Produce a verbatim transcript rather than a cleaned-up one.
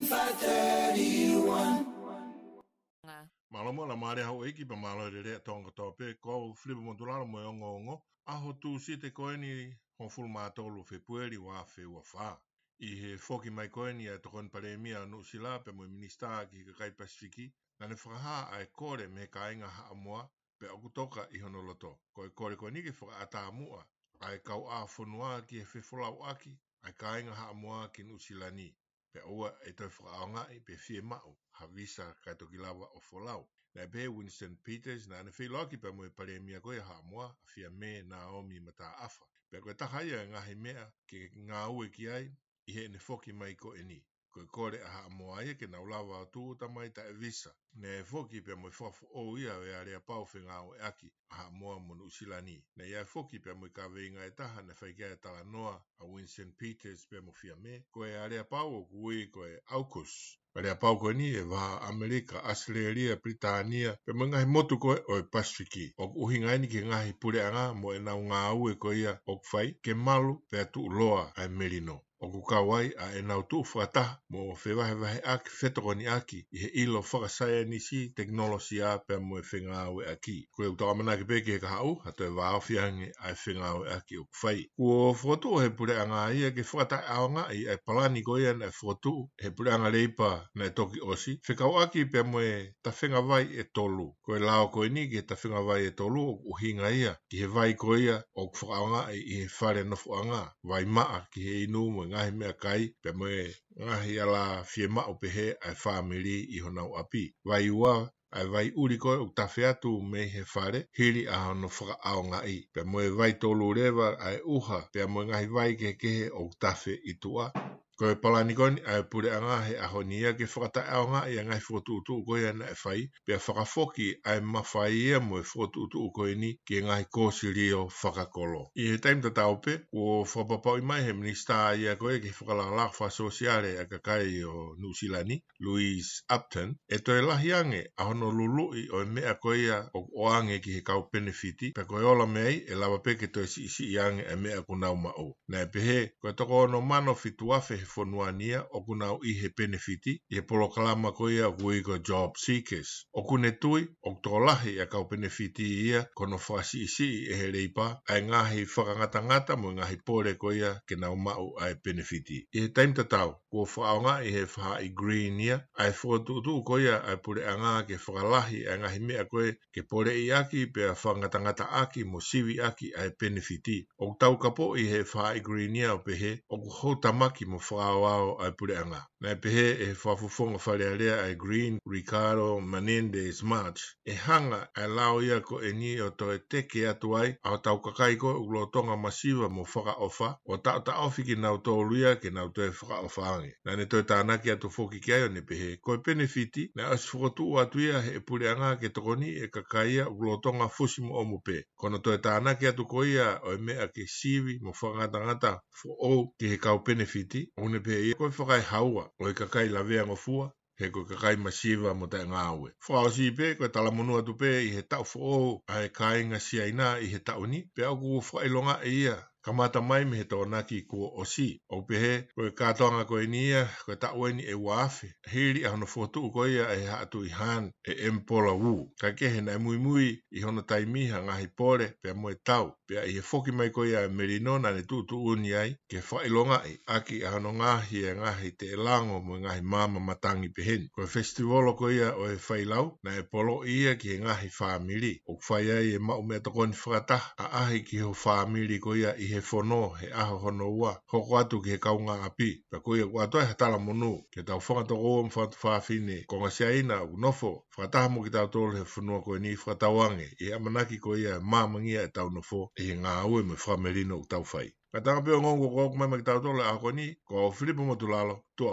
five thirty-one. Mālō mo e lama lea houʻeiki pea mālō e lelei ʻa Tonga kotoa pē, ko au Filipa Motulalo mo e ongoongo. ʻAho Tūsite ko eni, hongofulu mā tolu Fēpueli ua afe ua fā. ʻI he foki mai ko eni ʻa e Tokoni Palēmia ʻo Nuʻusila pea mo e Minisitā ki he kakai Pasifiki, naʻa ne fakahā ʻa e kole mei he kāinga Haʻamoa, pea ʻoku toka ʻi hono loto. Ko e kole ko eni ke fakaʻatā muʻa ʻa e kauʻāfonua ki he fefolauʻaki ʻa e kāinga Haʻamoa ki Nuʻusila ni. Pea ʻoua ʻe toe fakaʻaongaʻi pe fiemaʻu ha visa kae toki lava ʻo folau. Naʻe pehē ʻe Winston Peters naʻa ne feʻiloaki pea mo e Palēmia ko ia ʻo Haʻamoa, ʻa Fiame Naomi Mataʻafa. Pea ko e taha ia e ngaahi meʻa ke ngāue ki ai ʻi heʻene foki mai ko eni. Ko e kole ʻa Haʻamoa ia ke nau lava ʻo tūʻuta mai taʻe visa. Naʻe foki pea mo e fakafoʻou ia ʻo e aleapau fengāueʻaki ʻa Haʻamoa mo Nuʻusila ni. Naʻe ʻi ai foki pea mo e kaveinga ʻe taha naʻe fai ki ai e talanoa ʻa Winston Peters pea mo Fiame, ko e aleapau ʻoku ui ko e AUKUS. Aleapau ko eni ʻe vaha ʻAmelika, ʻAositelēlia, Pilitānia, pea mo e ngaahi motu ko ē ʻo e Pasifiki. ʻOku ʻuhinga eni ki he ngaahi puleʻanga mo ʻenau ngāue ko ia ʻoku fai ke malu pea tuʻuloa ʻa e melino. ʻOku kau ai ʻa ʻenau tuʻu fakataha mo fevahevaheʻaki, fetokoniʻaki ʻi he ʻilo fakasaienisi, tekinolosia pea mo e fengāueʻaki. Ko ia ʻoku tau ʻamanaki pē ki he kahaʻu, ha toe vāofi ange ʻa e fengāueʻaki ʻoku fai. Kuo fokotuʻu ʻe he puleʻanga ia ke fakataʻeʻaongaʻi ʻa e palani ko ia naʻe fokotuʻu ʻe he Puleʻanga Leipa naʻe toki ʻosi, fekauʻaki pea mo e tafenga vai ʻe tolu. Ko e lao ko eni ki he tafenga vai ʻe tolu ʻoku ʻuhinga ia ki he vai ko ia ʻoku fakaʻaongaʻi ʻi he fale nofoʻanga, vai maʻa ki he inu mo e ngaahi meʻakai, pea mo e ngaahi ala fiemaʻu pehē ʻa e fāmili ʻi honau ʻapi. Vai ua, ʻa e vai ʻuli ko ē ʻoku tafe atu mei he fale hili ʻa hono fakaʻaongaʻi. Pea mo e vai tolu leva ʻa e ʻuha, pea mo e ngaahi vai kehekehe ʻoku tafe ʻi tuʻa. Ko e palani ko eni ʻa e puleʻanga he ʻaho ni ia ke fakataʻeʻaongaʻi ʻa e ngaahi fokotuʻutuʻu ko ia naʻe fai, pea fakafoki ʻa e mafai ia mo e fokotuʻutuʻu ko eni ki he ngaahi kōsilio fakakolo. ʻI he taimi tatau pē, kuo fakapapauʻi mai ʻe he minisitā ia ko ia ki he fakalakalaka fakasōsiale ʻa e kakai ʻo Nuʻusila ni, Louise Upton, ʻe toe lahi ange ʻa hono luluʻi ʻo e meʻa ko ia ʻoku ʻoange ki he kau penefiti, pea ko e ola mei ai ʻe lava pē ke toe siʻisiʻi ange ʻa e meʻa ʻoku nau maʻu. Naʻe pehē, ko e toko ono mano fitu afe he fonua ni ia ʻoku nau ʻi he penefiti, ʻi he polokalama ko ia ʻoku ui ko e Job Seekers. ʻOku ne tui, ʻoku tokolahi ʻa e kau penefiti ia ko hono fakasiʻisiʻi ʻe he Leipa ʻa e ngaahi fakangatangata mo e ngaahi pole ko ia ke nau maʻu ʻa e penefiti. ʻI he taimi tatau, kuo fakaʻaongaʻi ʻe he faʻahi Green ia ʻa e fokotuʻutuʻu ko ia ʻa e puleʻanga ke fakalahi ʻa e ngaahi meʻa ko ē ke poleʻiʻaki pea fakangatangataʻaki mo siviʻaki ʻa e penefiti. ʻOku taukapoʻi ʻe he faʻahi Green ia ʻo pehē, ʻoku houtamaki mo fakaaoao ʻa e puleʻanga. Naʻe pehē ʻe he fakafofonga Fale Alea ʻa e Green, Ricardo Menendez March, ʻe hanga ʻa e lao ia ko eni ʻo toe teke atu ai ʻa hotau kakai ko ē ʻoku lolotonga masiva mo fakaʻofa, ʻo taʻotaʻofi kinautolu ia ke nau toe fakaʻofa ange. Naʻa ne toe tānaki atu foki ki ai ʻo ne pehē, ko e penefiti naʻe ʻosi fokotuʻu atu ia ʻe he puleʻanga ke tokoniʻi ʻa e kakai ia ʻoku lolotonga fusi mo ʻomu pē. Ko hono toe tānaki atu ko ia ʻo e meʻa ke sivi mo fakangatangata foʻou ki he kau penefiti, ʻoku ne pehē ia ko e fakaehaua ʻo e kakai laveangofua, he ko e kakai masiva mo taʻengāue. Fakaʻosi pē, ko e talamonū atu pē ʻi he taʻu foʻou ʻa e kāinga Siaina ʻi he taʻu ni, pea ʻoku fakaʻilongaʻi ia kamata mai mei he Tokonaki kuo ʻosi. ʻOku pehē, ko e kātoanga ko eni ia, ko e taʻu eni ʻe ua afe hili ʻa hono fokotuʻu ko ia ʻe he Haʻa Tuʻi Han ʻe ʻEmipola Wu. Kae kehe naʻe muimui ʻi hono taimi ha ngaahi pole pea mo e tau. Pea ʻi he foki mai ko ia ʻa e melino naʻa ne tuʻutuʻuni ai ke fakaʻilongaʻi ʻaki ʻa hono ngaohi ʻa e ngaahi teʻelango mo e ngaahi maama matangi peheni. Ko e fesitiuolo ko ia ʻo e failau naʻe poloʻi ia ki he ngaahi fāmili. ʻOku fai ai e maʻu meʻatokoni fakataha ʻaʻahi ki ho fāmili ko ia ʻi he fono he ʻaho hono ua, hoko atu ki he kaungāʻapi. Pea ko ia ʻoku ʻoatu ai ha talamonū ki heʻetau fanga tokoua mo fanga tuofāfine konga Siaina ʻoku nofo fakataha mo kitautolu he fonua ko eni, fakatauange ʻi he ʻamanaki ko ia ʻe māmangia ʻetau nofo ʻi he ngāue mo e fakamelino ʻoku tau fai. Kātaki pē ʻo ngāue ko ē mai maʻa kitautolu he ʻaho ko eni, ko au Filipa Motulalo, tuʻa ʻofa.